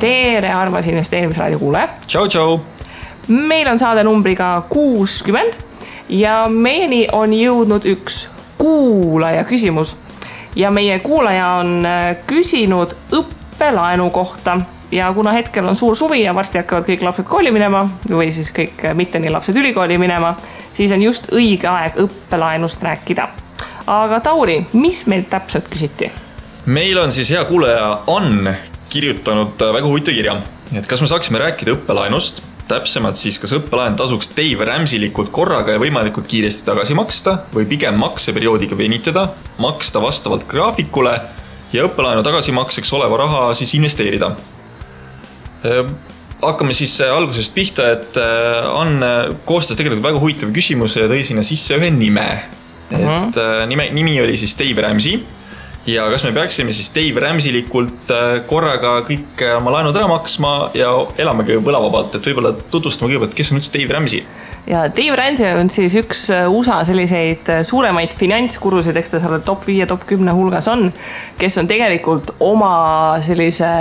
tere, armas investeerimisraadio kuulaja. Tšau. Meil on saade numbriga 60 ja meieni on jõudnud üks kuulaja küsimus. Ja meie kuulaja on küsinud õppelaenu kohta. Ja kuna hetkel on suur suvi ja varsti hakkavad kõik lapsed kooli minema või siis kõik mitte nii lapsed ülikooli minema, siis on just õige aeg õppelaenust rääkida. Aga Tauri, mis meil täpselt küsiti? Meil on siis hea kuulaja Ann kirjutanud väga huvitav kirja. Et kas me saaksime rääkida õppelaenust, täpsemalt siis kas õppelaen tasuks Dave Ramseylikult korraga ja võimalikult kiiresti tagasi maksta või pigem makseperioodiga venitada, maksta vastavalt graafikule ja õppelaenu tagasimakseks oleva raha siis investeerida. Hakkame siis algusest pihta, et Ann koostas tegelikult väga huvitava küsimuse ja tõi sinna sisse ühe nime. Et nimi oli siis Dave Ramsey ja kas me peaksime siis Dave Ramseylikult korraga kõik oma laenud ära maksma ja elamegi võlavabalt, et võib-olla tutvustama kõigepealt, kes on üldse Dave Ramsey? Ja Dave Ramsey on siis üks USA selliseid suuremaid finantskurusid, eks ta seal top 5 ja top 10 hulgas on, kes on tegelikult oma sellise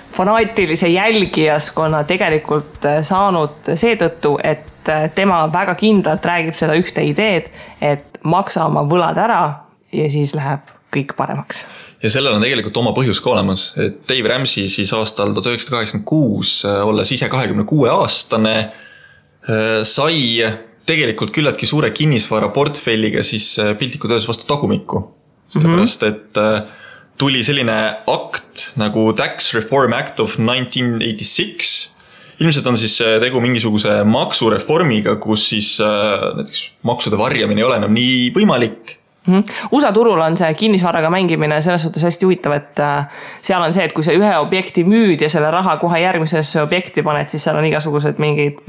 fanaatilise jälgijaskonna tegelikult saanud seetõttu, et tema väga kindlalt räägib seda ühte ideed, et maksa oma võlad ära ja siis läheb kõik paremaks. Ja sellel on tegelikult oma põhjus ka olemas, et Dave Ramsey siis aastal 1986, olles ise 26-aastane, sai tegelikult küllaltki suure kinnisvara portfelliga siis piltlikult öeldes vastu tagumikku. Sellepärast, et tuli selline akt nagu Tax Reform Act of 1986. Ilmselt on siis tegu mingisuguse maksureformiga, kus siis näiteks maksude varjamine ei ole enam nii võimalik. USA turul on see kinnisvaraga mängimine selles suhtes hästi huvitav, et seal on see, et kui sa ühe objekti müüd ja selle raha kohe järgmisesse objekti paned, siis seal on igasugused mingid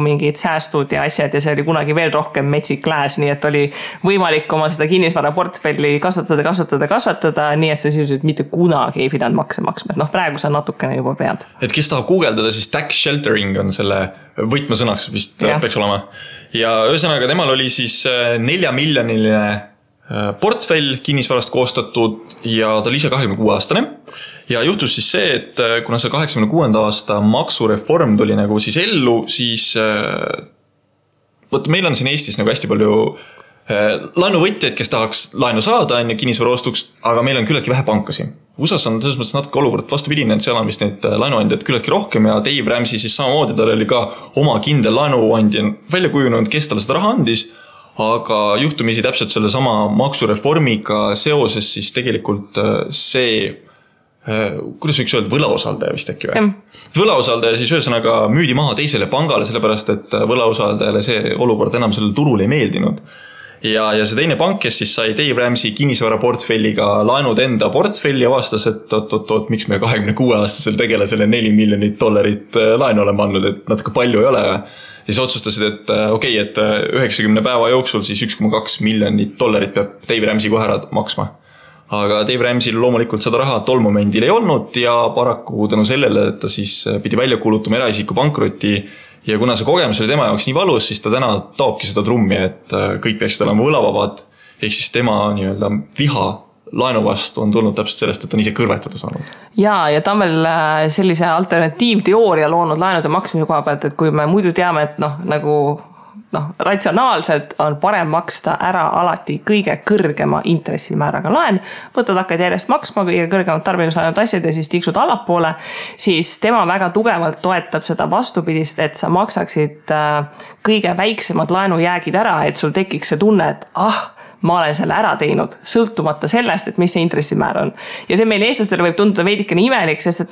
mingid säästud ja asjad ja see oli kunagi veel rohkem metsik lääs, nii et oli võimalik oma seda kinnisvara portfelli kasvatada, nii et sa sisuliselt mitte kunagi ei pidanud makse maksma. Et praegu sa natukene juba pead. Et kes tahab guugeldada, siis tax sheltering on selle võtmesõnaks vist peaks olema. Ja ühesõnaga temal oli siis 4 miljoniline portfell kinnisvarast koostatud ja ta oli ise 26-aastane ja juhtus siis see, et kuna see 86. aasta maksureform tuli nagu siis ellu, siis meil on siin Eestis nagu hästi palju laenuvõtjaid, kes tahaks laenu saada kinnisvara ostuks, aga meil on küllaltki vähe pankasi. USAs on selles mõttes natuke olukord vastupidine, et seal on vist neid laenuandjaid küllaltki rohkem ja Dave Ramsey siis samamoodi, tal oli ka oma kindel laenuandja välja kujunenud, kes talle seda raha andis. Aga juhtumisi täpselt selle sama maksureformiga seoses siis tegelikult see, kuidas võiks öelda, võlausaldaja vist äkki või? Võlausaldaja siis ühesõnaga müüdi maha teisele pangale, sellepärast et võlausaldajale see olukord enam sellel turul ei meeldinud. Ja see teine pank, kes siis sai Dave Ramsey kinnisvara portfelliga laenud enda portfelli ja vastas, et oot, miks me 26-aastasel tegelasele $4 miljonit laenu oleme andnud, et natuke palju ei ole. Ja siis otsustasid, et okei, et 90 päeva jooksul siis $1,2 miljonit peab Dave Ramsey kohe ära maksma. Aga Dave Ramsey loomulikult seda raha tol momendil ei olnud ja paraku tänu sellele, et ta siis pidi välja kuulutama eraisiku pankrotti ja kuna see kogemus oli tema jaoks nii valus, siis ta täna taobki seda trummi, et kõik peaksid olema võlavabad, ehk siis tema nii-öelda viha laenu vastu on tulnud täpselt sellest, et on ise kõrvetada saanud. Ja ta on veel sellise alternatiivteooria loonud laenude maksmise koha pealt, et kui me muidu teame, et ratsionaalselt on parem maksta ära alati kõige kõrgema intressimääraga laen, võtad hakkad järjest maksma kõige kõrgemad tarbimislaenud asjad ja siis tiksud allapoole, siis tema väga tugevalt toetab seda vastupidist, et sa maksaksid kõige väiksemad laenujäägid ära, et sul tekiks see tunne, et ma olen selle ära teinud, sõltumata sellest, et mis see intressimäär on. Ja see meil eestlastele võib tunduda veidikene imelik, sest et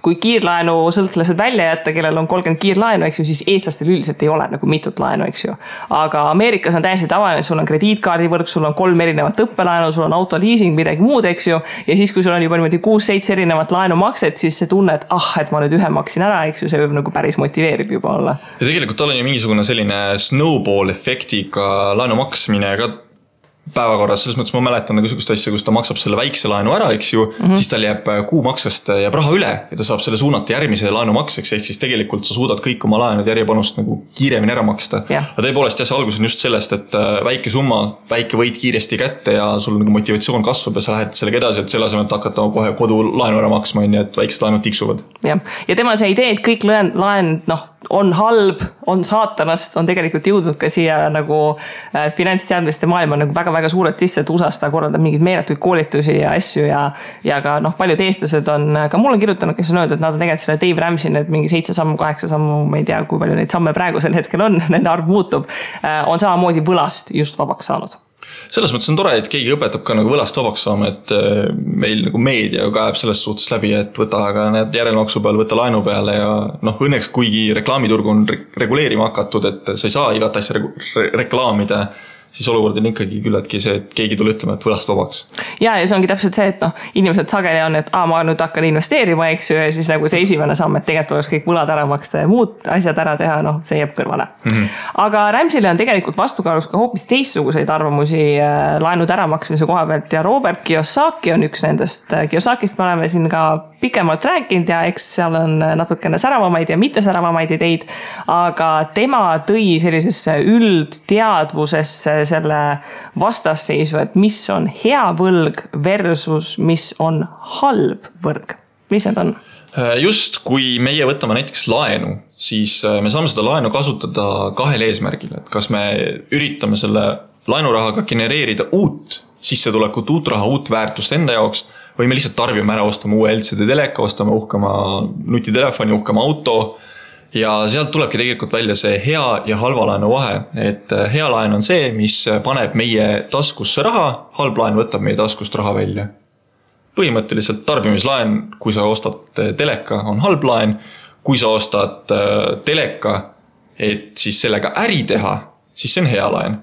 kui kiirlaenu sõltlased välja jätta, kellel on 30 kiirlaenu, eks ju, siis eestlastel üldiselt ei ole nagu mitut laenu, eks ju. Aga Ameerikas on täiesti tavaline, sul on krediitkaardivõrk, sul on 3 erinevat õppelaenu, sul on autoliising, midagi muud, eks ju. Ja siis, kui sul on juba 6-7 erinevat laenumakset, siis see tunne, et et ma nüüd ühe maksin ära, eks ju, see võib nagu päris motiveerib juba olla. Ja tegelikult tal on ju mingisugune selline snowball efektiga laenu maksmine ka päevakorras, selles mõttes ma mäletan nagu sihukest asja, kus ta maksab selle väikse laenu ära, eks ju, siis tal jääb kuumaksest jääb raha üle ja ta saab selle suunata järgmise laenu makseks, ehk siis tegelikult sa suudad kõik oma laenud järjepanust nagu kiiremini ära maksta. Aga tõepoolest jah, see algus on just sellest, et väike summa, väike võit kiiresti kätte ja sul nagu motivatsioon kasvab ja sa lähed sellega edasi, et selle asemel hakata kohe kodu laenu ära maksma, et väiksed laenud tiksuvad. Ja tema see idee, et kõik laenud on halb, on saatanast, on tegelikult jõudnud ka siia nagu finantsteadmiste maailma nagu väga suurelt sisse, et USA-s ta korraldab mingeid meeletuid koolitusi ja asju ja ka paljud eestlased on ka mulle kirjutanud, kes on öeldud, et nad on tegelikult selle Dave Ramsey need mingi 7 sammu, 8 sammu, ma ei tea, kui palju neid samme praegusel hetkel on, nende arv muutub, on samamoodi võlast just vabaks saanud. Selles mõttes on tore, et keegi õpetab ka nagu võlast vabaks saama, et meil nagu meedia kaeb selles suhtes läbi, et võta aga need järelmaksu peale, võta laenu peale ja õnneks kuigi reklaamiturg on reguleerima hakatud, et sa ei saa igat asja reklaamida, siis olukord on ikkagi küllaltki see, et keegi tule ütlema, et võlast vabaks. Ja see ongi täpselt see, et inimesed sageli on, et ma nüüd hakkan investeerima, eks ju, ja siis nagu see esimene samm, et tegelikult oleks kõik võlad ära maksta ja muud asjad ära teha, see jääb kõrvale. Aga Ramsey'le on tegelikult vastukaalus ka hoopis teistsuguseid arvamusi laenud äramaksmise koha pealt ja Robert Kiyosaki on üks nendest. Kiyosakist me oleme siin ka pikemalt rääkinud ja eks seal on natukene säravamaid ja mitte säravamaid ideid, aga tema tõi sellisesse üldteadvusesse selle vastasseisu, et mis on hea võlg versus mis on halb võlg. Mis need on? Just kui meie võtame näiteks laenu, siis me saame seda laenu kasutada kahel eesmärgil, et kas me üritame selle laenurahaga genereerida uut sissetulekut, uut raha, uut väärtust enda jaoks või me lihtsalt tarbime ära, ostame uue LCD teleka, ostame uhkema nutitelefoni, uhkema auto ja sealt tulebki tegelikult välja see hea ja halva laenu vahe, et hea laen on see, mis paneb meie taskusse raha, halb laen võtab meie taskust raha välja. Põhimõtteliselt tarbimislaen, kui sa ostad teleka, on halb laen, kui sa ostad teleka, et siis sellega äri teha, siis see on hea laen.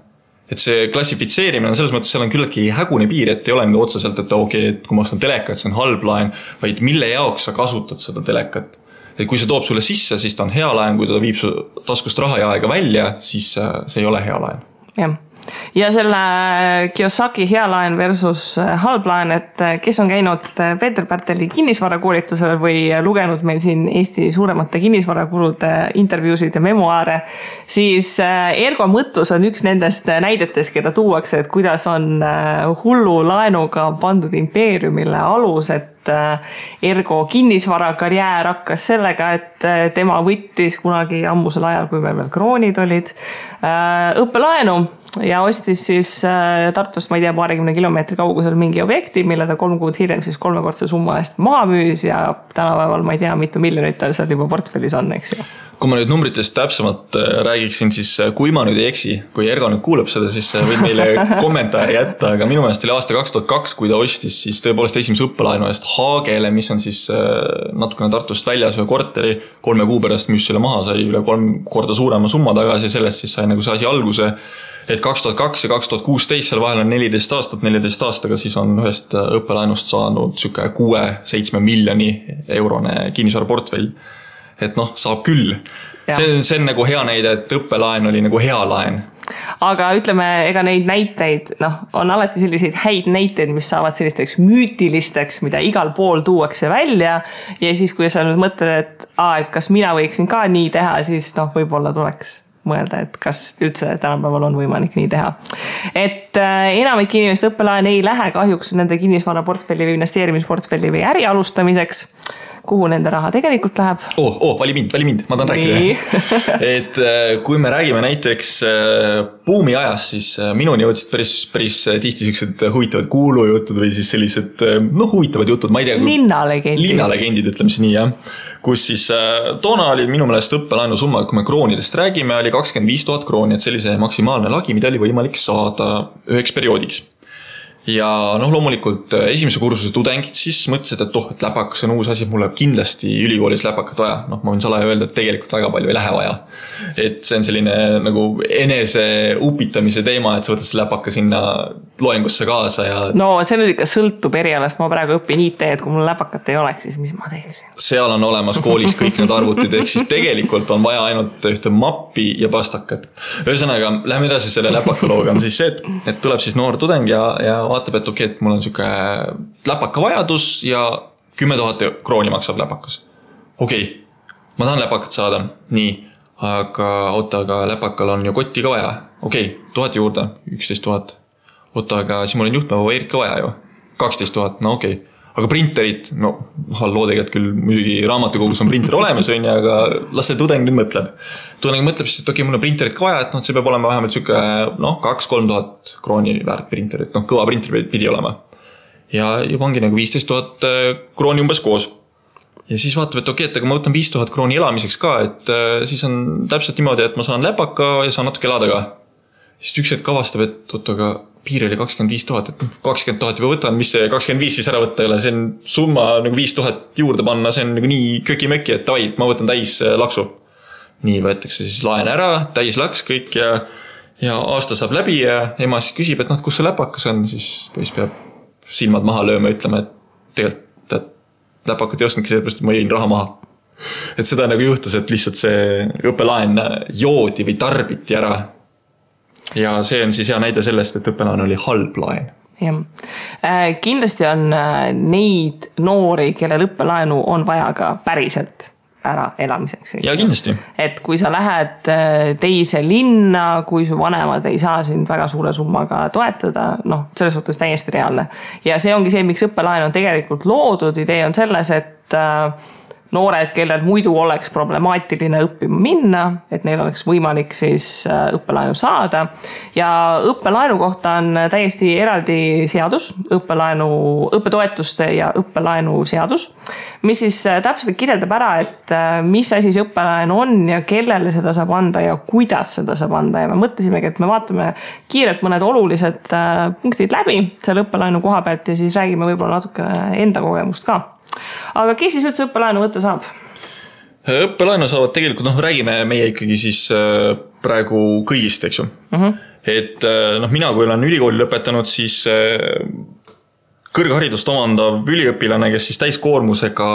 Et see klassifitseerimine on selles mõttes, seal on küllaltki hägune piir, et ei ole nüüd otseselt, et et kui ma ostan telekat, see on halb laen, vaid mille jaoks sa kasutad seda telekat. Et kui see toob sulle sisse, siis ta on hea laen, kui ta viib su taskust raha ja aega välja, siis see ei ole hea laen. Jah. Ja selle Kiyosaki hea laen versus halb laen, et kes on käinud Peeter Pärteli kinnisvarakoolitusel või lugenud meil siin Eesti suuremate kinnisvarakulude intervjuusid ja memoaare, siis Ergo Mõttus on üks nendest näidetes, keda tuuakse, et kuidas on hullu laenuga pandud impeeriumile alus, et Ergo kinnisvarakarjäär hakkas sellega, et tema võttis kunagi ammusel ajal, kui meil veel kroonid olid, õppelaenu ja ostis siis Tartust, ma ei tea, 20 kilomeetri kaugusel mingi objekti, mille ta 3 kuud hiljem siis 3-kordse summa eest maha müüs ja tänapäeval, ma ei tea, mitu miljonit tal seal juba portfellis on, eks ju. Kui ma nüüd numbritest täpsemalt räägiksin, siis kui ma nüüd ei eksi, kui Ergo nüüd kuuleb seda, siis võid meile kommentaari jätta, aga minu meelest oli aasta 2002, kui ta ostis siis tõepoolest esimese õppelaenu eest Haagele, mis on siis natukene Tartust väljas ühe korteri, 3 kuu pärast müüs selle maha, sai üle 3 korda suurema summa tagasi ja sellest siis sai nagu see asi alguse, et 2002 ja 2016 seal vahel on 14 aastaga siis on ühest õppelaenust saanud 6-7 miljoni eurone kinnisvaraportfell. Et saab küll. See on nagu hea näide, et õppelaen oli nagu hea laen. Aga ütleme, ega neid näiteid, on alati selliseid häid näiteid, mis saavad sellisteks müütilisteks, mida igal pool tuuakse välja ja siis, kui sa nüüd mõtled, et kas mina võiksin ka nii teha, siis võib-olla tuleks mõelda, et kas üldse tänapäeval on võimalik nii teha. Et enamik inimest õppelaen ei lähe kahjuks nende kinnisvaraportfelli või investeerimisportfelli või äri alustamiseks, kuhu nende raha tegelikult läheb. Vali mind, ma tahan rääkida. Et kui me räägime näiteks buumi ajas, siis minuni jõudsid päris tihti sellised huvitavad kuulujutud või siis sellised huvitavad jutud, ma ei tea. Linnalegendid, ütleme siis nii, jah. Kus siis toona oli minu meelest õppelaenu summa, kui me kroonidest räägime, oli 25 000 krooni, et sellise maksimaalne lagi, mida oli võimalik saada üheks perioodiks. Ja loomulikult esimese kursuse tudengid siis mõtlesid, et läpakas on uus asi, mulle kindlasti ülikoolis läpakat vaja. Ma võin salaja öelda, et tegelikult väga palju ei lähe vaja. Et see on selline nagu enese upitamise teema, et sa võtad see läpaka sinna loengusse kaasa ja no see nüüd ikka sõltub erialast, ma praegu õpin IT, et kui mul läpakat ei oleks, siis mis ma teeksin? Seal on olemas koolis kõik need arvutid, ehk siis tegelikult on vaja ainult ühte mappi ja pastakat. Ühesõnaga, lähme edasi selle läpakalooga on siis see, et tuleb siis noor tudeng ja vaatab, et okei, et mul on siuke läpaka vajadus ja 10 000 krooni maksab läpakas. Okei, ma tahan läpakat saada, nii, aga läpakal on ju kotti ka vaja. Okei, 1000 juurde, 11 000. Aga siis mul on juhtmeva Erik ka vaja ju. 12 000, no okei. Aga printerit, no halloo tegelikult küll muidugi raamatukogus on printer olemas, aga las see tudeng nüüd mõtleb. Tudeng mõtleb siis, et okei, mul on printerit ka vaja, et see peab olema vähemalt siuke 2-3 000 krooni väärt printerit. Kõva printer pidi olema. Ja juba ongi nagu 15 000 krooni umbes koos. Ja siis vaatab, et okei, et aga ma võtan 5 000 krooni elamiseks ka, et siis on täpselt niimoodi, et ma saan läpaka ja saan natuke elada ka. Siis üks hetk avastab, et aga piir oli 25 000, et 20 000 juba võtan, mis see 25 siis ära võtta ei ole, see on summa nagu 5 000 juurde panna, see on nagu nii köki-möki, et davai, ma võtan täis laksu. Nii võetakse siis laen ära, täis laks kõik ja aasta saab läbi ja ema siis küsib, et kus see läpakas on, siis poiss peab silmad maha lööma ja ütlema, et tegelikult läpakat ei ostnudki sellepärast, et ma jõin raha maha. Et seda nagu juhtus, et lihtsalt see õppelaen joodi või tarbiti ära. Ja see on siis hea näide sellest, et õppelaen oli halb laen. Ja. Kindlasti on neid noori, kellel õppelaenu on vaja ka päriselt ära elamiseks. Ja kindlasti. Et kui sa lähed teise linna, kui su vanemad ei saa sind väga suure summaga toetada, selles suhtes täiesti reaalne. Ja see ongi see, miks õppelaen on tegelikult loodud. Idee on selles, et noored, kellel muidu oleks problemaatiline õppima minna, et neil oleks võimalik siis õppelaenu saada. Ja õppelaenu kohta on täiesti eraldi seadus, õppetoetuste ja õppelaenu seadus, mis siis täpselt kirjeldab ära, et mis asi see õppelaenu on ja kellele seda saab anda ja kuidas seda saab anda. Ja me mõtlesimegi, et me vaatame kiirelt mõned olulised punktid läbi selle õppelaenu koha pealt ja siis räägime võib-olla natuke enda kogemust ka. Aga kes siis üldse õppelaenu võtta saab? Õppelaenu saavad tegelikult, räägime meie ikkagi siis praegu kõigist, eks ju. Et mina, kui olen ülikooli lõpetanud, siis kõrgharidust omandav üliõpilane, kes siis täiskoormusega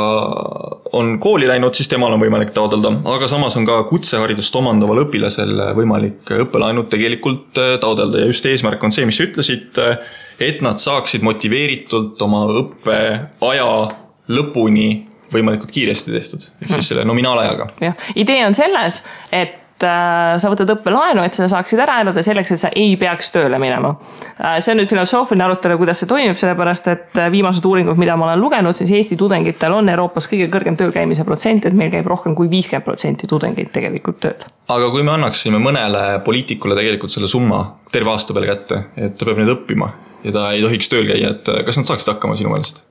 on kooli läinud, siis temal on võimalik taotleda. Aga samas on ka kutseharidust omandaval õpilasel võimalik õppelaenud tegelikult taotleda. Ja just eesmärk on see, mis ütlesid, et nad saaksid motiveeritult oma õppeaja lõpuni võimalikult kiiresti tehtud. Siis selle nominaalajaga. Ja. Idee on selles, et sa võtad õppelaenu, et sa saaksid ära elada selleks, et sa ei peaks tööle minema. See on nüüd filosoofiline arutelu, kuidas see toimib, sellepärast, et viimased uuringud, mida ma olen lugenud, siis Eesti tudengitel on Euroopas kõige kõrgem tööl käimise protsent, et meil käib rohkem kui 50% tudengeid tegelikult tööl. Aga kui me annaksime mõnele poliitikule tegelikult selle summa terve aasta peale kätte, et ta peab need õppima ja ta ei tohiks tööl käia, et kas nad saaksid hakkama sinu meelest?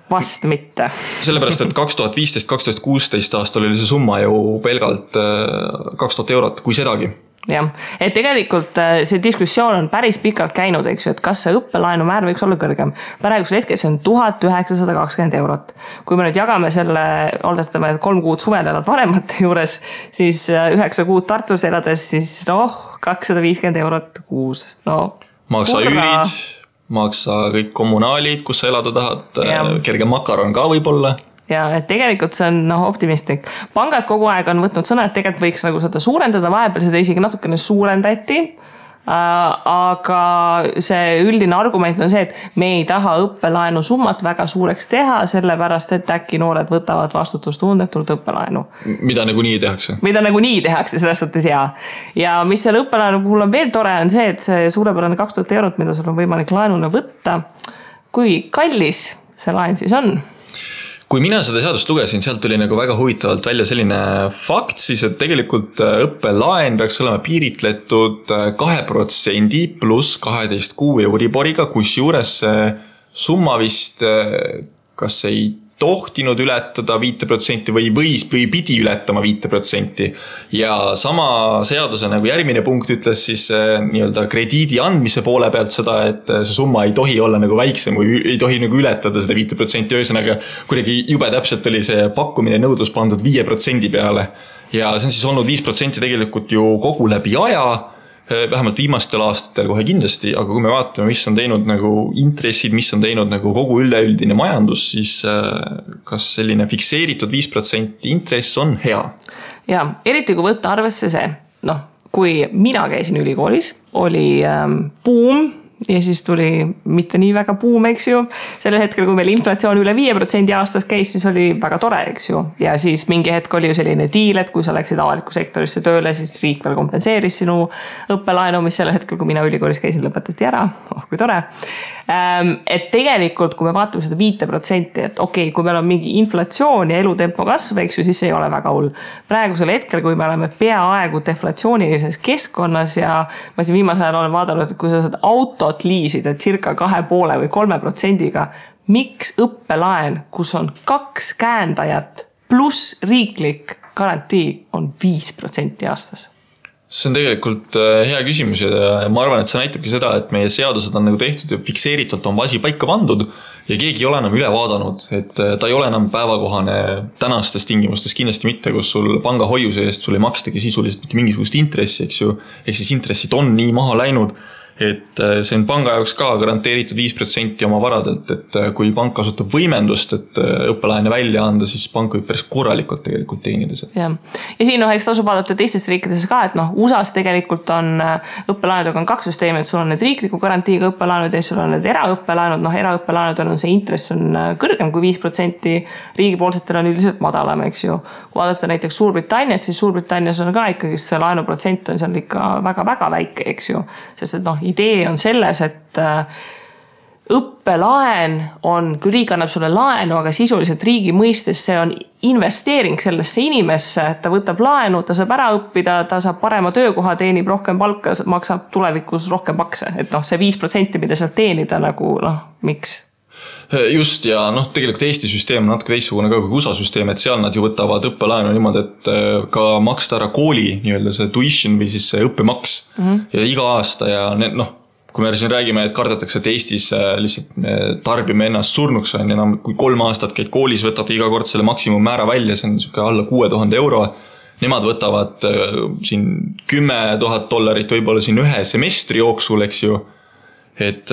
Vast mitte. Sellepärast, et 2015-2016 aastal oli see summa ju pelgalt 2000 eurot, kui sedagi. Jah, et tegelikult see diskussioon on päris pikalt käinud, eks ju, et kas see õppelaenu määr võiks olla kõrgem. Praegusel hetkel see on 1920 eurot. Kui me nüüd jagame selle, oletame, et 3 kuud suvel elad vanemate juures, siis 9 kuud Tartus elades, siis 250 eurot kuus. Maksa üürid, maksa kõik kommunaalid, kus sa elada tahad, kerge makaron ka võib-olla. Ja et tegelikult see on optimistlik. Pangad kogu aeg on võtnud sõna, et tegelikult võiks nagu seda suurendada, vahepeal seda isegi natukene suurendati, aga see üldine argument on see, et me ei taha õppelaenu summat väga suureks teha, sellepärast, et äkki noored võtavad vastutustundetult õppelaenu. Mida nagu nii tehakse? Mida nagu nii tehakse, selles suhtes jaa. Ja mis selle õppelaenu puhul on veel tore, on see, et see suurepärane 2000 eurot, mida sul on võimalik laenule võtta, kui kallis see laen siis on? Kui mina seda seadust lugesin, sealt tuli nagu väga huvitavalt välja selline fakt, siis et tegelikult õppelaen peaks olema piiritletud 2% pluss 12 kuu Euriboriga, kus juures summa vist kas ei tohtinud ületada 5% või pidi ületama 5%. Ja sama seaduse nagu järgmine punkt ütles siis nii-öelda krediidi andmise poole pealt seda, et see summa ei tohi olla nagu väiksem või ei tohi nagu ületada seda 5%. Ühesõnaga kuidagi jube täpselt oli see pakkumine nõudlus pandud 5% peale. Ja see on siis olnud 5% tegelikult ju kogu läbi aja. vähemalt viimastel aastatel kohe kindlasti, aga kui me vaatame, mis on teinud nagu intressid, mis on teinud nagu kogu üleüldine majandus, siis kas selline fikseeritud 5% intress on hea? Ja, eriti kui võtta arvesse see, kui mina käisin ülikoolis, oli buum ja siis tuli mitte nii väga buum, eks ju. Sellel hetkel, kui meil inflatsioon üle 5% aastas käis, siis oli väga tore, eks ju. Ja siis mingi hetk oli ju selline diil, et kui sa läksid avaliku sektorisse tööle, siis riik veel kompenseeris sinu õppelaenu, mis sellel hetkel, kui mina ülikoolis käisin, lõpetati ära. Kui tore. Et tegelikult, kui me vaatame seda 5%, et okei, kui meil on mingi inflatsioon ja elutempo kasv, eks ju, siis see ei ole väga hull. Praegusel hetkel, kui me oleme peaaegu deflatsioonilises keskkonnas ja ma siin viimasel ajal olen vaadanud, et kui sa saad autot liisida circa 2,5 või 3%-ga, miks õppelaen, kus on 2 käendajat pluss riiklik garantii on 5% aastas? See on tegelikult hea küsimus ja ma arvan, et see näitabki seda, et meie seadused on nagu tehtud ja fikseeritult on asi paika pandud ja keegi ei ole enam üle vaadanud, et ta ei ole enam päevakohane tänastes tingimustes kindlasti mitte, kus sul panga hoiuse eest sul ei makstagi sisuliselt mitte mingisugust intressi, eks ju, ehk siis intressid on nii maha läinud, et see on panga jaoks ka garanteeritud 5% oma varadelt, et kui pank kasutab võimendust, et õppelaene välja anda, siis pank võib päris korralikult tegelikult teenida seda. Ja siin eks tasub vaadata teistes riikides ka, et USAs tegelikult on õppelaenudega on 2 süsteemi, et sul on need riikliku garantiiga õppelaenud ja sul on need eraõppelaenud, eraõppelaenud on see intress on kõrgem kui 5%, riigipoolsetel on üldiselt madalam, eks ju. Kui vaadata näiteks Suurbritanniat, siis Suurbritannias on ka ikkagi see laenuprotsent on seal ikka väga-väga väike, eks ju, sest et idee on selles, et õppelaen on, kui riik annab sulle laenu, aga sisuliselt riigi mõistes see on investeering sellesse inimesse, ta võtab laenu, ta saab ära õppida, ta saab parema töökoha, teenib rohkem palka, maksab tulevikus rohkem makse. Et see 5%, mida sealt teenida nagu, miks? Just ja tegelikult Eesti süsteem on natuke teistsugune ka kui USA süsteem, et seal nad ju võtavad õppelaenu niimoodi, et ka maksta ära kooli nii-öelda see tuition või siis see õppemaks ja iga aasta ja kui me siin räägime, et kardetakse, et Eestis lihtsalt tarbime ennast surnuks on ja kui 3 aastat käid koolis, võtad iga kord selle maksimummäära välja, see on alla 6000 euro. Nemad võtavad siin $10,000 võib-olla siin ühe semestri jooksul, eks ju. Et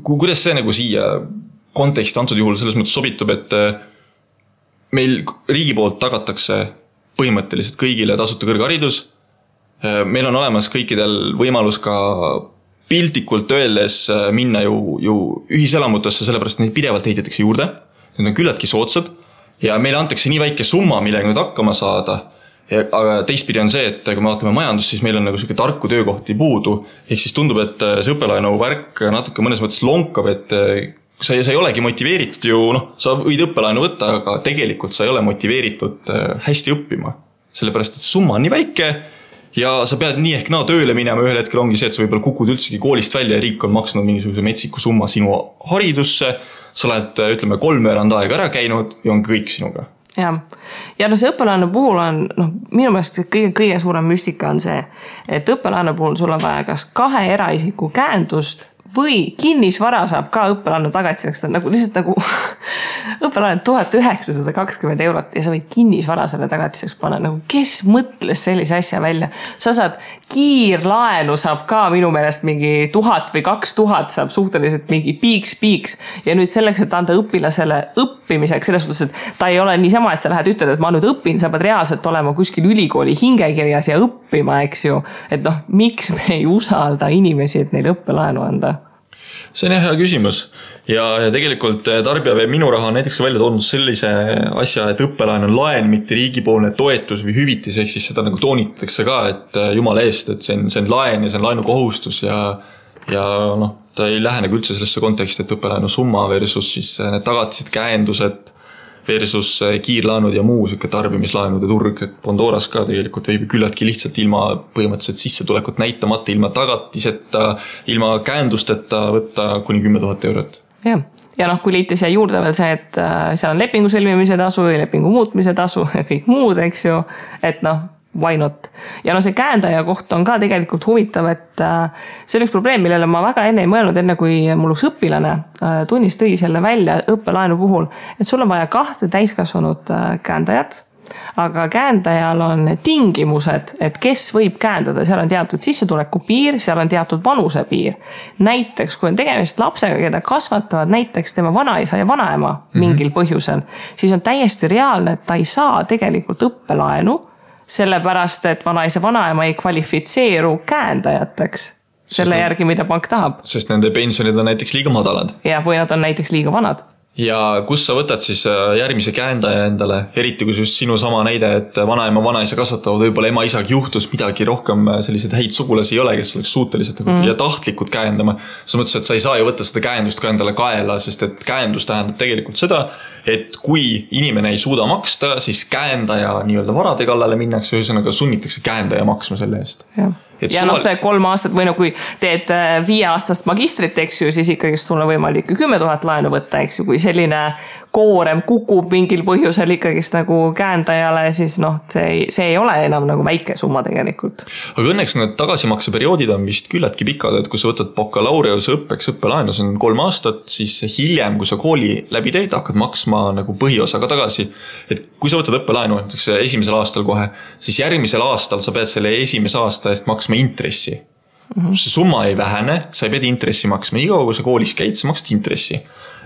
kuidas see nagu siia konteksti antud juhul selles mõttes sobitub, et meil riigi poolt tagatakse põhimõtteliselt kõigile tasuta kõrgharidus. Meil on olemas kõikidel võimalus ka piltlikult öeldes minna ju ühiselamutesse, sellepärast neid pidevalt ehitatakse juurde. Need on küllaltki soodsad ja meile antakse nii väike summa, millega nüüd hakkama saada. Aga teistpidi on see, et kui me vaatame majandust, siis meil on nagu selline tarku töökohti puudu. Ehk siis tundub, et see õppelaenu värk natuke mõnes mõttes lonkab, et sa ei olegi motiveeritud ju, sa võid õppelaenu võtta, aga tegelikult sa ei ole motiveeritud hästi õppima. Sellepärast, et summa on nii väike ja sa pead nii ehk tööle minema, ühel hetkel ongi see, et sa võib-olla kukud üldsegi koolist välja ja riik on maksnud mingisuguse metsiku summa sinu haridusse, sa oled, ütleme, 3 aega ära käinud ja on kõik sinuga. Ja see õppelaenu puhul on, minu meelest kõige suurem müstika on see, et õppelaenu puhul sul on vaja kas 2 eraisiku käendust või kinnisvara saab ka õppelaenu tagatiseks, lihtsalt õppelaenu 1920 eurot ja sa võid kinnisvara selle tagatiseks panna. Kes mõtles sellise asja välja? Sa saad kiirlaenu saab ka minu meelest mingi 1000 või 2000 saab suhteliselt mingi piiks ja nüüd selleks, et anda õpilasele õppimiseks, selles suhtes, et ta ei ole niisama, et sa lähed ütled, et ma nüüd õpin, sa pead reaalselt olema kuskil ülikooli hingekirjas ja õppima, eks ju. Et miks me ei usalda inimesi, et neil õppelaenu anda? See on hea küsimus ja tegelikult Tarbija Veeb Minu Raha on näiteks ka välja toonud sellise asja, et õppelaen on laen, mitte riigipoolne toetus või hüvitis, ehk siis seda nagu toonitatakse ka, et jumala eest, et see on laen ja see on laenukohustus ja ta ei lähe nagu üldse sellesse konteksti, et õppelaenu summa versus siis need tagatised, käendused versus kiirlaenud ja muu tarbimislaenude turg, et Pandoras ka tegelikult võib küllaltki lihtsalt ilma põhimõtteliselt sissetulekut näitamata, ilma tagatiseta, ilma käendusteta võtta kuni 10 000 eurot. Ja kui liiti siia juurde veel see, et seal on lepingu sõlmimise tasu ja lepingu muutmise tasu ja kõik muud, eks ju, et why not? Ja see käendaja koht on ka tegelikult huvitav, et see on üks probleem, millele ma väga enne ei mõelnud, enne kui mul üks õpilane tunnis tõi selle välja õppelaenu puhul, et sul on vaja 2 täiskasvanud käendajat aga käendajal on tingimused, et kes võib käendada, seal on teatud sissetuleku piir, seal on teatud vanuse piir. Näiteks, kui on tegemist lapsega, keda kasvatavad näiteks tema vanaisa ja vanaema mingil põhjusel, siis on täiesti reaalne, et ta ei saa tegelikult õppelaenu, sellepärast, et vanaisa vanaema ei kvalifitseeru käendajateks selle järgi, mida pank tahab. Sest nende pensionid on näiteks liiga madalad. Ja, või nad on näiteks liiga vanad. Ja kus sa võtad siis järgmise käendaja endale, eriti kui just sinu sama näide, et vanaema vanaisa kasvatavad, võib-olla ema isaga juhtus midagi rohkem, sellised häid sugulasi ei ole, kes oleks suutelised ja tahtlikud käendama. Sa mõtlesid, et sa ei saa ju võtta seda käendust ka endale kaela, sest et käendus tähendab tegelikult seda, et kui inimene ei suuda maksta, siis käendaja nii-öelda varade kallale minnakse, ühesõnaga sunnitakse käendaja maksma selle eest. Ja noh, see 3 aastat või no kui teed 5 aastast magistrit, eks ju, siis ikkagi sul on võimalik 10 000 laenu võtta, eks ju, kui selline koorem kukub mingil põhjusel ikkagist nagu käendajale, siis noh, see ei ole enam nagu väike summa tegelikult. Aga õnneks need tagasimakseperioodid on vist küllaltki pikad, et kui sa võtad bakalaureuse õppeks õppelaenu, see on 3 aastat, siis hiljem, kui sa kooli läbi teed, hakkad maksma nagu põhiosaga tagasi. Et kui sa võtad õppelaenu, näiteks esimesel aastal kohe, siis järgmisel aastal sa pead selle esimese aasta eest maksma intressi. See summa ei vähene, sa ei pea intressi maksma. Igav, kui sa koolis käid, sa maksad intressi.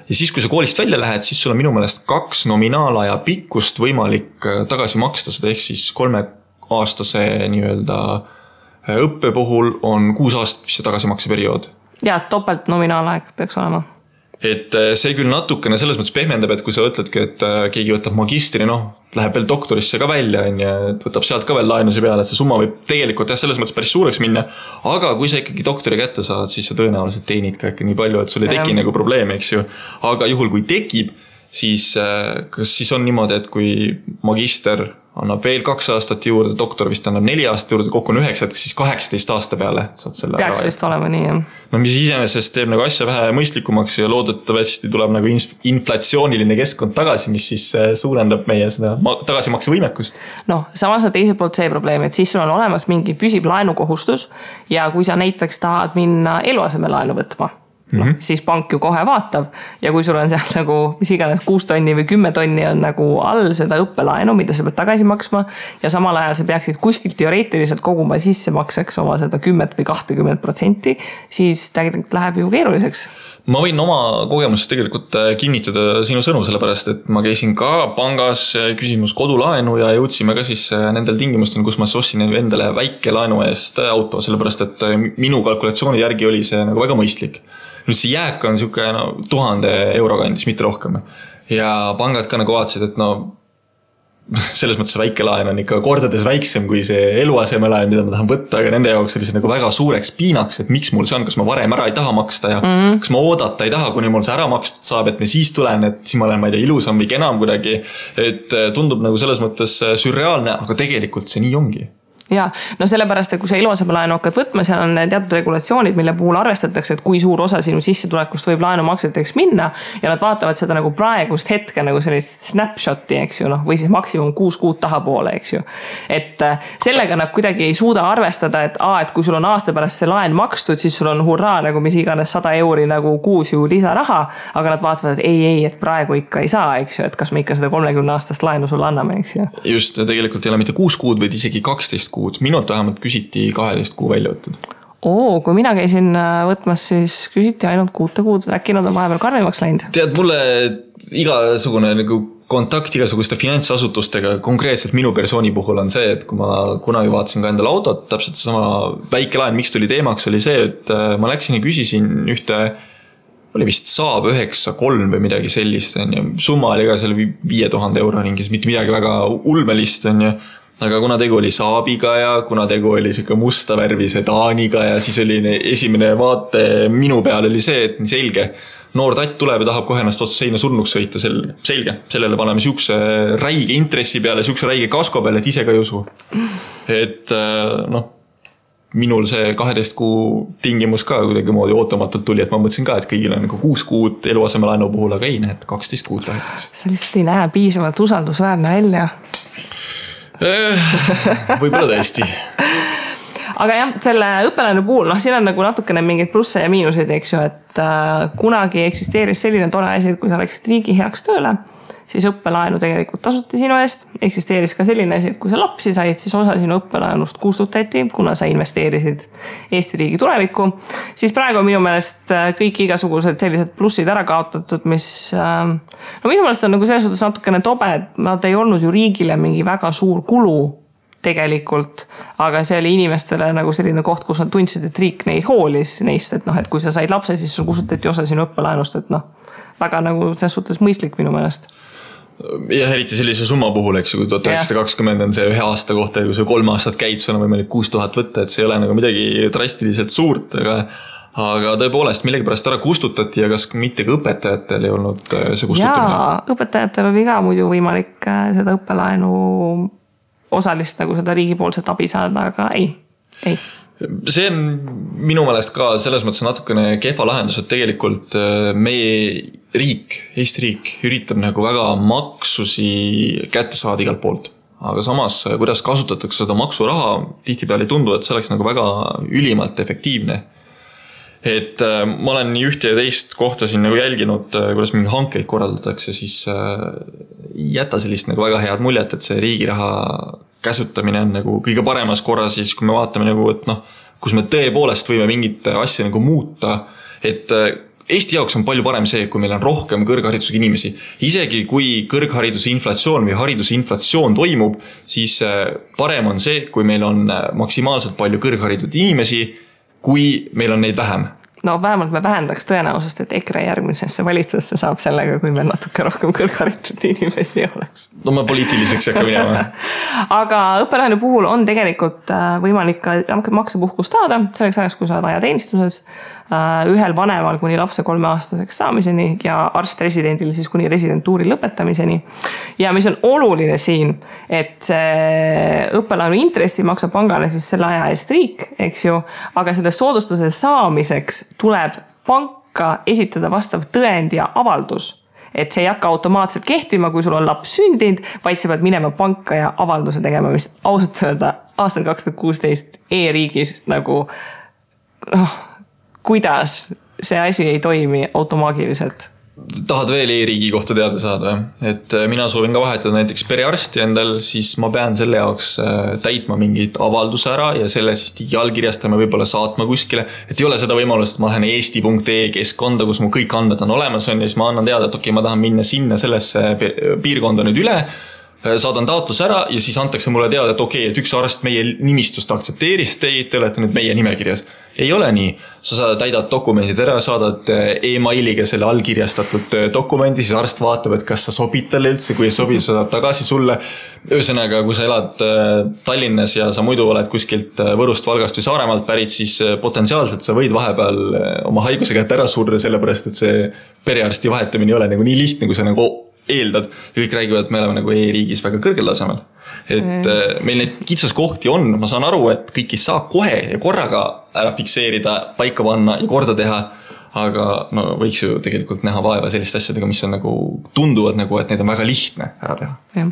Ja siis, kui sa koolist välja lähed, siis sul on minu meelest 2 nominaalaja pikkust võimalik tagasi maksta seda, ehk siis 3-aastase nii-öelda õppe puhul on 6 aastat vist see tagasimakseperiood. Ja, topelt nominaalaeg peaks olema. Et see küll natukene selles mõttes pehmendab, et kui sa ütledki, et keegi võtab magistri, noh, läheb veel doktorisse ka välja, et võtab sealt ka veel laenusi peale, et see summa võib tegelikult selles mõttes päris suureks minna, aga kui sa ikkagi doktori kätte saad, siis sa tõenäoliselt teenid ka ikka nii palju, et sul ei teki nagu probleemi, eks ju. Aga juhul, kui tekib, siis kas siis on niimoodi, et kui magister annab veel 2 aastat juurde, doktor vist annab 4 aastat juurde, kokku on 9, siis 18 aasta peale saad selle peaks vist olema nii, jah. No mis iseenesest teeb nagu asja vähe mõistlikumaks ja loodetavasti tuleb nagu inflatsiooniline keskkond tagasi, mis siis suurendab meie seda tagasimakse võimekust. Noh, samas on teiselt poolt see probleem, et siis sul on olemas mingi püsib laenukohustus ja kui sa näiteks tahad minna eluaseme laenu võtma, siis pank ju kohe vaatab ja kui sul on seal nagu mis iganes 6 tonni või 10 tonni on nagu all seda õppelaenu, mida sa pead tagasi maksma ja samal ajal sa peaksid kuskilt teoreetiliselt koguma sissemakseks oma seda 10 või 20%, siis tegelikult läheb ju keeruliseks. Ma võin oma kogemusest tegelikult kinnitada sinu sõnu, sellepärast, et ma käisin ka pangas küsimus kodulaenu ja jõudsime ka siis nendel tingimustel, kus ma ostsin endale väike laenu eest auto, sellepärast, et minu kalkulatsiooni järgi oli see nagu väga mõistlik. Nüüd see jääk on siuke 1000 euro kandis, mitte rohkem. Ja pangad ka nagu vaatasid, et selles mõttes väike laen on ikka kordades väiksem kui see eluasemelaen, mida ma tahan võtta, aga nende jaoks oli see nagu väga suureks piinaks, et miks mul see on, kas ma varem ära ei taha maksta ja kas ma oodata ei taha, kuni mul see ära makstud saab, et me siis tulen, et siis ma olen, ma ei tea, ilusam või kenam kuidagi, et tundub nagu selles mõttes sürreaalne, aga tegelikult see nii ongi. Ja, no sellepärast, et kui sa eluasemelaenu hakkad võtma, seal on teatud regulatsioonid, mille puhul arvestatakse, et kui suur osa sinu sissetulekust võib laenumakseteks minna ja nad vaatavad seda nagu praegust hetke nagu sellist snapshoti, eks ju, või siis maksimum 6 kuud tahapoole, eks ju. Et sellega nad kuidagi ei suuda arvestada, et kui sul on aasta pärast see laen makstud, siis sul on hurraa nagu mis iganes 100 euri nagu kuus ju lisaraha, aga nad vaatavad, et ei, et praegu ikka ei saa, eks ju, et kas me ikka seda 30 aastast laenu sulle anname, eks ju. Just, tegelikult ei ole mitte 6 kuud, vaid isegi 12 kuud. Minult vähemalt küsiti 12 kuu välja võttud. Kui mina käisin võtmas, siis küsiti ainult 6 kuud. Äkki nad on vahepeal karmimaks läinud? Tead, mulle igasugune nagu kontakt igasuguste finantsasutustega, konkreetselt minu persooni puhul on see, et kui ma kunagi vaatasin ka endale autot, täpselt sama väike laen, miks tuli teemaks, oli see, et ma läksin ja küsisin ühte, oli vist Saab 9-3 või midagi sellist, summa oli ka seal 5000 euro ringis, mitte midagi väga ulmelist, aga kuna tegu oli Saabiga ja kuna tegu oli siuke musta värvi sedaaniga ja siis oli esimene vaate minu peal oli see, et nii selge. Noor tatt tuleb ja tahab kohe ennast otsa seina surnuks sõita, selge. Sellele paneme siukse räige intressi peale, siukse räige kasko peale, et ise ka ei usu. Et minul see 12 kuu tingimus ka kuidagi moodi ootamatult tuli, et ma mõtlesin ka, et kõigil on nagu 6 kuud eluasemelaenu puhul, aga ei näe, et 12 kuud tahetakse. See lihtsalt ei näe piisavalt usaldusväärne välja. Võib-olla tõesti. Aga jah, selle õppelaenu puhul, siin on nagu natukene mingeid plusse ja miinuseid, eks ju, et kunagi eksisteeris selline tore asi, et kui sa läksid riigi heaks tööle, siis õppelaenu tegelikult tasuti sinu eest. Eksisteeris ka selline asi, et kui sa lapsi said, siis osa sinu õppelaenust kustutati, kuna sa investeerisid Eesti riigi tulevikku. Siis praegu on minu meelest kõik igasugused sellised plussid ära kaotatud, mis minu meelest on nagu selles suhtes natukene tobe, et nad ei olnud ju riigile mingi väga suur kulu tegelikult, aga see oli inimestele nagu selline koht, kus nad tundsid, et riik neid hoolis neist, et et kui sa said lapse, siis sul kustutati osa sinu õppelaenust, et väga nagu selles suhtes mõistlik minu meelest. Ja eriti sellise summa puhul, eks kui 1920 on see ühe aasta kohta, kui sa 3 aastat käid, sul on võimalik 6000 võtta, et see ei ole nagu midagi drastiliselt suurt, aga tõepoolest millegipärast ära kustutati ja kas mitte ka õpetajatel ei olnud see kustutamine? Jaa, õpetajatel oli ka muidu võimalik seda õppelaenu osalist nagu seda riigipoolset abi saada, aga ei. See on minu meelest ka selles mõttes natukene kehva lahendus, et tegelikult meie riik, Eesti riik üritab nagu väga maksusi kätte saada igalt poolt. Aga samas, kuidas kasutatakse seda maksuraha, tihtipeale ei tundu, et see oleks nagu väga ülimalt efektiivne. Et ma olen nii ühte ja teist kohta siin nagu jälginud, kuidas mingi hankeid korraldatakse, siis jäta sellist nagu väga head muljet, et see riigiraha käsutamine on nagu kõige paremas korras, siis kui me vaatame nagu, et kus me tõepoolest võime mingit asja nagu muuta, et Eesti jaoks on palju parem see, kui meil on rohkem kõrgharidusega inimesi. Isegi kui kõrghariduse inflatsioon või hariduse inflatsioon toimub, siis parem on see, kui meil on maksimaalselt palju kõrgharitud inimesi, kui meil on neid vähem. No vähemalt me vähendaks tõenäosust, et EKRE järgmisesse valitsusse saab sellega, kui meil natuke rohkem kõrgharitud inimesi oleks. No ma poliitiliseks ei hakka minema. Aga õppelaenu puhul on tegelikult võimalik ka maksepuhkust saada selleks ajaks, kui sa oled ajateenistuses ühel vanemal kuni lapse 3-aastaseks saamiseni ja arst-residendil siis kuni residentuuri lõpetamiseni. Ja mis on oluline siin, et õppelaenu intressi maksab pangale siis selle aja eest riik, eks ju, aga selle soodustuse saamiseks tuleb panka esitada vastav tõend ja avaldus. Et see ei hakka automaatselt kehtima, kui sul on laps sündinud, vaid sa pead minema panka ja avalduse tegema, mis ausalt öelda aastal 2016 e-riigis nagu kuidas see asi ei toimi automaagiliselt. Tahad veel e-riigi kohta teada saada? Et mina soovin ka vahetada näiteks perearsti endal, siis ma pean selle jaoks täitma mingit avalduse ära ja selle siis digiallkirjastama võib-olla saatma kuskile. Et ei ole seda võimalust, et ma lähen eesti.ee keskkonda, kus mu kõik andmed on olemas ja siis ma annan teada, et okei, ma tahan minna sinna sellesse piirkonda nüüd üle, saadan taotlus ära ja siis antakse mulle teada, et okei, et üks arst meie nimistust aktsepteeris teid, te olete nüüd meie nimekirjas. Ei ole nii. Sa täidad dokumendid ära, saadad e-mailiga selle allkirjastatud dokumendi, siis arst vaatab, et kas sa sobid talle üldse, kui ei sobi, saadab tagasi sulle. Ühesõnaga, kui sa elad Tallinnas ja sa muidu oled kuskilt Võrust, Valgast või Saaremaalt pärit, siis potentsiaalselt sa võid vahepeal oma haiguse kätte ära surra, sellepärast et see perearsti vahetamine ei ole nagu nii lihtne, kui sa nagu eeldad ja kõik räägivad, et me oleme nagu e-riigis väga kõrgel tasemel. Et meil neid kitsaskohti on, ma saan aru, et kõik ei saa kohe ja korraga ära fikseerida, paika panna ja korda teha, aga võiks ju tegelikult näha vaeva selliste asjadega, mis on nagu tunduvad nagu, et neid on väga lihtne ära teha.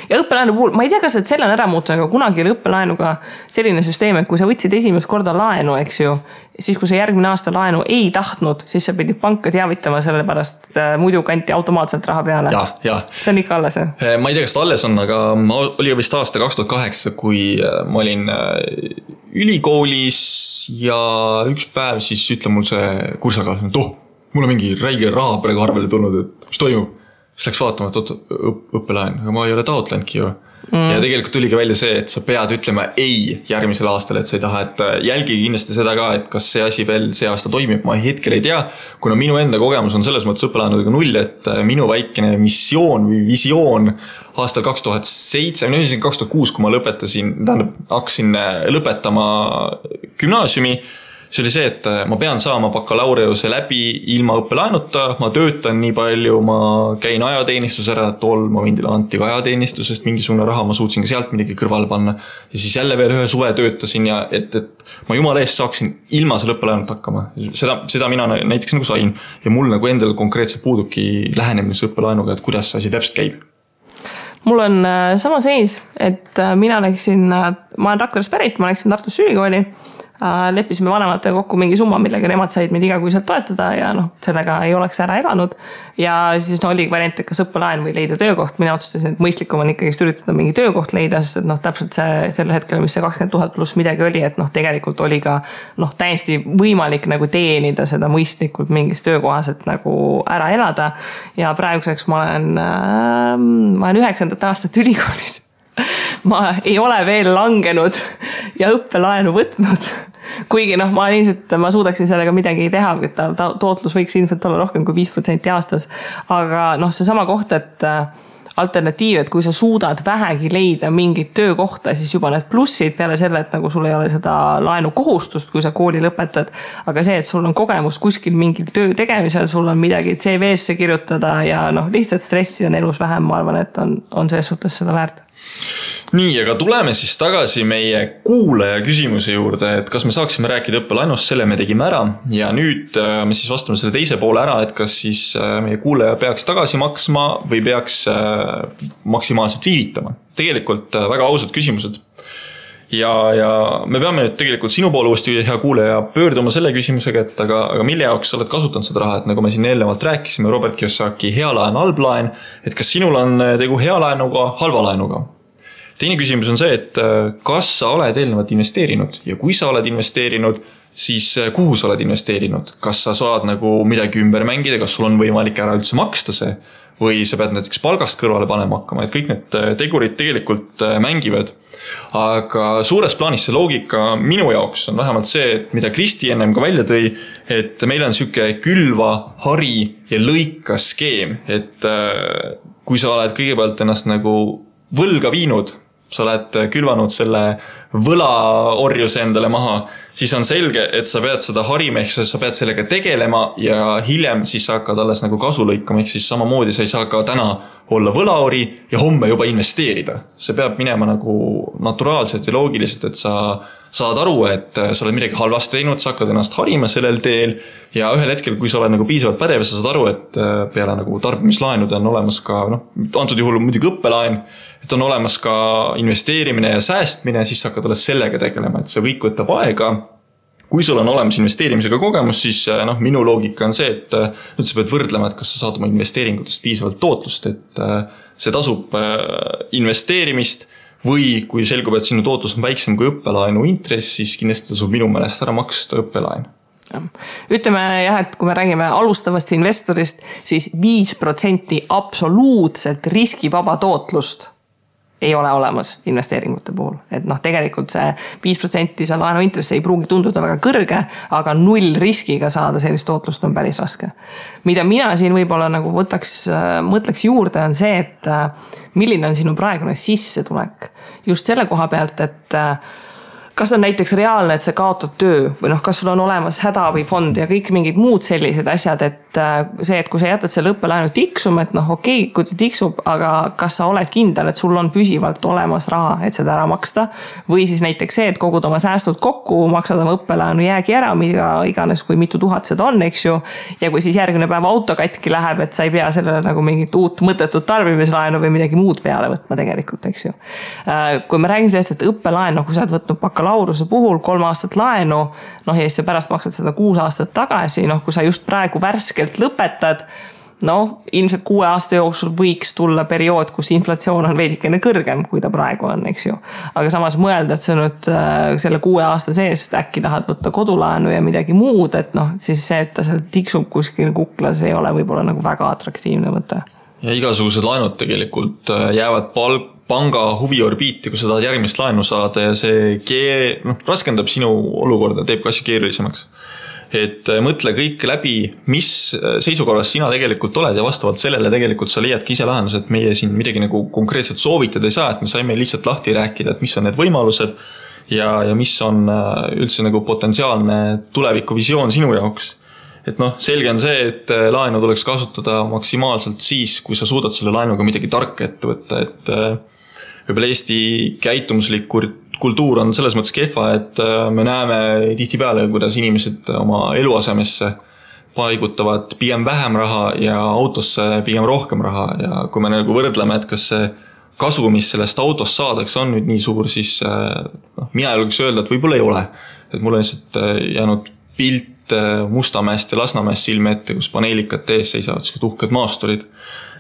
Ja õppelaenu puhul, ma ei tea, kas selle on ära muutunud, aga kunagi oli õppelaenuga selline süsteem, et kui sa võtsid esimest korda laenu, eks ju, siis kui sa järgmine aasta laenu ei tahtnud, siis sa pidid panka teavitama sellepärast, muidu kanti automaatselt raha peale. Ja. See on ikka alles, jah? Ma ei tea, kas ta alles on, aga oli vist aasta 2008, kui ma olin ülikoolis ja üks päev siis ütle mul see kursakaaslane, et mul on mingi räige raha praegu arvele tulnud, et mis toimub. Siis läks vaatama, et õppelaen, aga ma ei ole taotlenudki ju. Ja tegelikult tuli ka välja see, et sa pead ütlema ei järgmisel aastal, et sa ei taha, et jälgi kindlasti seda ka, et kas see asi veel see aasta toimib, ma hetkel ei tea, kuna minu enda kogemus on selles mõttes õppelaenudega 0, et minu väikene missioon või visioon aastal 2007, 2006, kui ma lõpetasin, hakkasin lõpetama gümnaasiumi, see oli see, et ma pean saama bakalaureuse läbi ilma õppelaenuta, ma töötan nii palju, ma käin ajateenistus ära, tol momendil anti ka ajateenistusest mingisugune raha, ma suutsin ka sealt midagi kõrvale panna ja siis jälle veel ühe suve töötasin ja et ma jumala eest saaksin ilma selle õppelaenut hakkama. Seda mina näiteks nagu sain ja mul nagu endal konkreetselt puuduki lähenemine õppelaenuga, et kuidas see asi täpselt käib. Mul on sama seis, et mina läksin ma olen Rakveres pärit, ma läksin Tartus ülikooli, leppisime vanematega kokku mingi summa, millega nemad said meid igakuiselt toetada ja noh, sellega ei oleks ära elanud. Ja siis oli variant, et kas õppelaen või leida töökoht. Mina otsustasin, et mõistlikum on ikkagi üritada mingi töökoht leida, sest et noh, täpselt see sel hetkel, mis see 20 000 pluss midagi oli, et noh, tegelikult oli ka noh, täiesti võimalik nagu teenida seda mõistlikult mingis töökohas, et nagu ära elada. Ja praeguseks ma olen 9. aastat ülikoolis. Ma ei ole veel langenud ja õppelaenu võtnud. Kuigi noh, ma suudaksin sellega midagi teha, et tootlus võiks ilmselt olla rohkem kui 5% aastas. Aga noh, see sama koht, et alternatiiv, et kui sa suudad vähegi leida mingit töökohta, siis juba need plussid peale selle, et nagu sul ei ole seda laenu kohustust, kui sa kooli lõpetad. Aga see, et sul on kogemus kuskil mingil töö tegemisel, sul on midagi CV-sse kirjutada ja noh, lihtsalt stressi on elus vähem, ma arvan, et on selles suhtes seda väärt. Nii, aga tuleme siis tagasi meie kuulaja küsimuse juurde, et kas me saaksime rääkida õppelainust, selle me tegime ära ja nüüd me siis vastame selle teise poole ära, et kas siis meie kuulaja peaks tagasi maksma või peaks maksimaalselt viivitama. Tegelikult väga ausad küsimused. Ja me peame nüüd tegelikult sinu poole uuesti hea kuulaja pöörduma selle küsimusega, et aga mille jaoks sa oled kasutanud seda raha, et nagu me siin eelnevalt rääkisime, Robert Kiyosaki hea laen, halb laen, et kas sinul on tegu hea laenuga, halva laenuga? Teine küsimus on see, et kas sa oled eelnevalt investeerinud ja kui sa oled investeerinud, siis kuhu sa oled investeerinud? Kas sa saad nagu midagi ümber mängida, kas sul on võimalik ära üldse maksta see või sa pead näiteks palgast kõrvale panema hakkama, et kõik need tegurid tegelikult mängivad. Aga suures plaanis see loogika minu jaoks on vähemalt see, et mida Kristi ennem ka välja tõi, et meil on siuke külva, hari ja lõika skeem, et kui sa oled kõigepealt ennast nagu võlga viinud, sa oled külvanud selle võlaorjuse endale maha, siis on selge, et sa pead seda harima, ehk sa pead sellega tegelema ja hiljem siis sa hakkad alles nagu kasu lõikama, ehk siis samamoodi sa ei saa ka täna olla võlaori ja homme juba investeerida. See peab minema nagu naturaalselt ja loogiliselt, et sa saad aru, et sa oled midagi halvasti teinud, sa hakkad ennast harima sellel teel ja ühel hetkel, kui sa oled nagu piisavalt pädev, sa saad aru, et peale nagu tarbimislaenude on olemas ka, antud juhul muidugi õppelaen, et on olemas ka investeerimine ja säästmine, siis sa hakkad alles sellega tegelema, et see kõik võtab aega. Kui sul on olemas investeerimisega kogemus, siis minu loogika on see, et nüüd sa pead võrdlema, et kas sa saad oma investeeringutest piisavalt tootlust, et see tasub investeerimist või kui selgub, et sinu tootlus on väiksem kui õppelaenu intress, siis kindlasti tasub minu meelest ära maksta õppelaen. Ütleme jah, et kui me räägime alustavast investorist, siis 5% absoluutselt riskivaba tootlust ei ole olemas investeeringute puhul. Et tegelikult see 5% see laenu intress ei pruugi tunduda väga kõrge, aga 0 riskiga saada sellist tootlust on päris raske. Mida mina siin võib-olla nagu mõtleks juurde on see, et milline on sinu praegune sissetulek. Just selle koha pealt, et kas on näiteks reaalne, et sa kaotad töö või kas sul on olemas hädaabifond ja kõik mingid muud sellised asjad, et see, et kui sa jätad selle õppelaenu tiksuma, et okei, kui ta tiksub, aga kas sa oled kindel, et sul on püsivalt olemas raha, et seda ära maksta või siis näiteks see, et kogud oma säästud kokku, maksad oma õppelaenu jäägi ära, mida iganes, kui mitu tuhat seda on, eks ju, ja kui siis järgmine päev auto katki läheb, et sa ei pea sellele nagu mingit uut mõttetut tarbimislaenu või midagi muud peale võtma tegelikult, eks ju. Kui me räägime sellest, et õppelaen, kui sa oled võtnud bakalaureuse puhul 3 aastat laenu, ja siis sa pärast maksad seda 6 aastat tagasi, kui sa just praegu värskelt lõpetad, ilmselt 6 aasta jooksul võiks tulla periood, kus inflatsioon on veidikene kõrgem, kui ta praegu on, eks ju. Aga samas mõelda, et sa nüüd selle 6 aasta sees äkki tahad võtta kodulaenu ja midagi muud, et siis see, et ta seal tiksub kuskil kuklas, ei ole võib-olla nagu väga atraktiivne mõte. Ja igasugused laenud tegelikult jäävad panga huviorbiiti, kui sa tahad järgmist laenu saada ja see raskendab sinu olukorda, teeb ka asju keerulisemaks. Et mõtle kõik läbi, mis seisukorras sina tegelikult oled ja vastavalt sellele tegelikult sa leiadki ise lahendus, et meie siin midagi nagu konkreetselt soovitada ei saa, et me saime lihtsalt lahti rääkida, et mis on need võimalused ja mis on üldse nagu potentsiaalne tulevikuvisioon sinu jaoks. Et selge on see, et laenu tuleks kasutada maksimaalselt siis, kui sa suudad selle laenuga midagi tarka ette võtta, et võib-olla Eesti käitumuslik kultuur on selles mõttes kehva, et me näeme tihtipeale, kuidas inimesed oma eluasemesse paigutavad pigem vähem raha ja autosse pigem rohkem raha ja kui me nagu võrdleme, et kas see kasu, mis sellest autost saadakse, on nüüd nii suur, siis mina julgeks öelda, et võib-olla ei ole. Et mul on lihtsalt jäänud pilt Mustamäest ja Lasnamäest silme ette, kus paneelikad ees seisavad sellised uhked maasturid.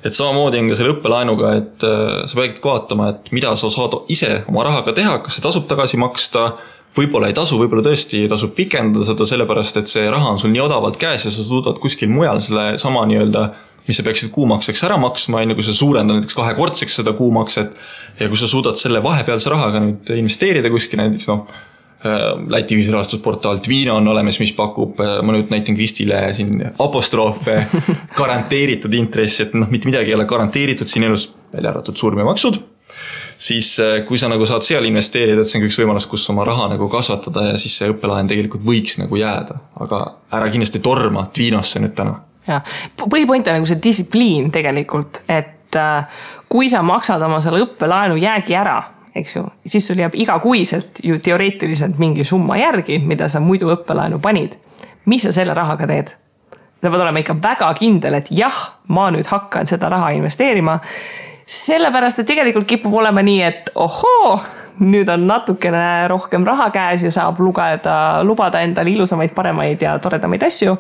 Et samamoodi on ka selle õppelaenuga, et sa pead vaatama, et mida sa saad ise oma rahaga teha, kas see tasub tagasi maksta, võib-olla ei tasu, võib-olla tõesti tasub pikendada seda sellepärast, et see raha on sul nii odavalt käes ja sa suudad kuskil mujal selle sama nii-öelda, mis sa peaksid kuumakseks ära maksma, kui sa suurendad näiteks 2-kordseks seda kuumakset ja kui sa suudad selle vahepealse rahaga nüüd investeerida kuskil näiteks Läti ühisrahastusportaal Twino on olemas, mis pakub, ma nüüd näitan Kristile siin apostroofe, garanteeritud intressi, et mitte midagi ei ole garanteeritud siin elus, välja arvatud surm ja maksud, siis kui sa saad seal investeerida, et see on üks võimalus, kus oma raha kasvatada ja siis see õppelaen tegelikult võiks jääda, aga ära kindlasti torma Twinosse nüüd täna. Ja, põhipoint on see distsipliin tegelikult, et kui sa maksad oma selle õppelaenu jäägi ära, eks ju, siis sul jääb igakuiselt ju teoreetiliselt mingi summa järgi, mida sa muidu õppelaenu panid. Mis sa selle rahaga teed? Sa pead olema ikka väga kindel, et jah, ma nüüd hakkan seda raha investeerima, sellepärast, et tegelikult kipub olema nii, et ohoo, nüüd on natukene rohkem raha käes ja saab lubada endale ilusamaid, paremaid ja toredamaid asju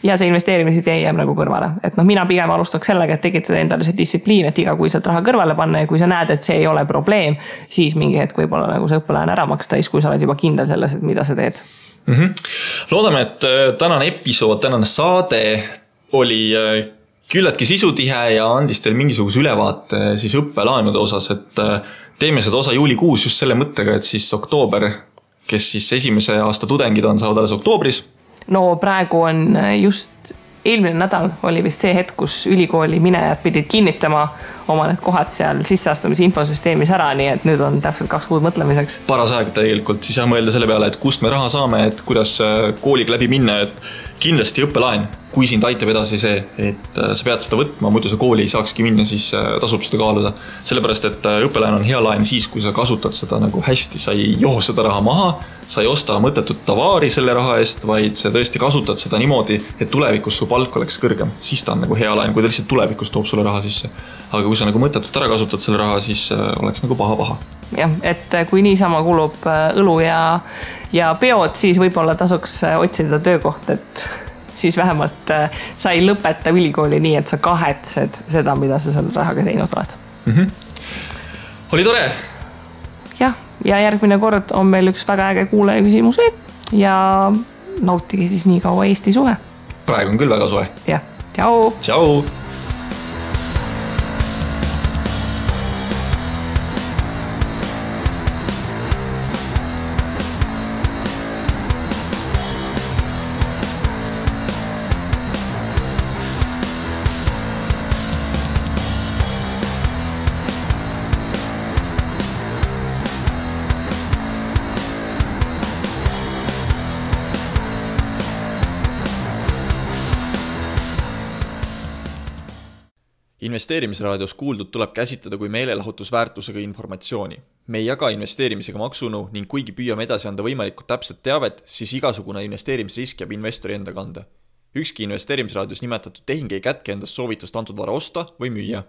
ja see investeerimised jääb kõrvale. Et mina pigem alustaks sellega, et tekitada endale see distsipliin, et igakuiselt raha kõrvale panna ja kui sa näed, et see ei ole probleem, siis mingi hetk võib-olla see õppelaen ära maksta, kui sa oled juba kindel selles, et mida sa teed. Loodame, et tänane episood, tänane saade oli küllaltki sisutihe ja andis teil mingisuguse ülevaate siis õppelaenude osas, et teeme seda osa juulikuus just selle mõttega, et siis oktoober, kes siis esimese aasta tudengid on, saavad alles oktoobris. No praegu on just eelmine nädal oli vist see hetk, kus ülikooli minejad pidid kinnitama oma need kohad seal sisseastumise infosüsteemis ära, nii et nüüd on täpselt 2 kuud mõtlemiseks. Paras aeg tegelikult siis mõelda selle peale, et kust me raha saame, et kuidas kooliga läbi minna, et kindlasti õppelaen, kui sind aitab edasi see, et sa pead seda võtma, muidu sa kooli ei saakski minna, siis tasub seda kaaluda. Sellepärast, et õppelaen on hea laen siis, kui sa kasutad seda hästi, sa ei joo seda raha maha, sa ei osta mõttetut tavaari selle raha eest, vaid sa tõesti kasutad seda niimoodi, et tulevikus su palk oleks kõrgem. Siis ta on hea laen, kui ta lihtsalt tulevikus toob sulle raha sisse. Aga kui sa mõttetut ära kasutad selle raha, siis oleks paha. Jah, et kui niisama kulub õlu ja peod, siis võib-olla tasuks otsida töökoht, et siis vähemalt sa ei lõpeta ülikooli nii, et sa kahetsed seda, mida sa selle rahaga teinud oled. Oli tore! Jah, ja järgmine kord on meil üks väga äge kuulaja küsimus ja nautige siis nii kaua Eesti suve. Praegu on küll väga soe. Jah, tšau! Tšau! Investeerimisraadios kuuldud tuleb käsitleda kui meelelahutusväärtusega informatsiooni. Me ei jaga investeerimisega maksunu ning kuigi püüame edasi anda võimalikult täpset teavet, siis igasugune investeerimisrisk jääb investori enda kanda. Ükski investeerimisraadios nimetatud tehing ei kätke endast soovitust antud vara osta või müüa.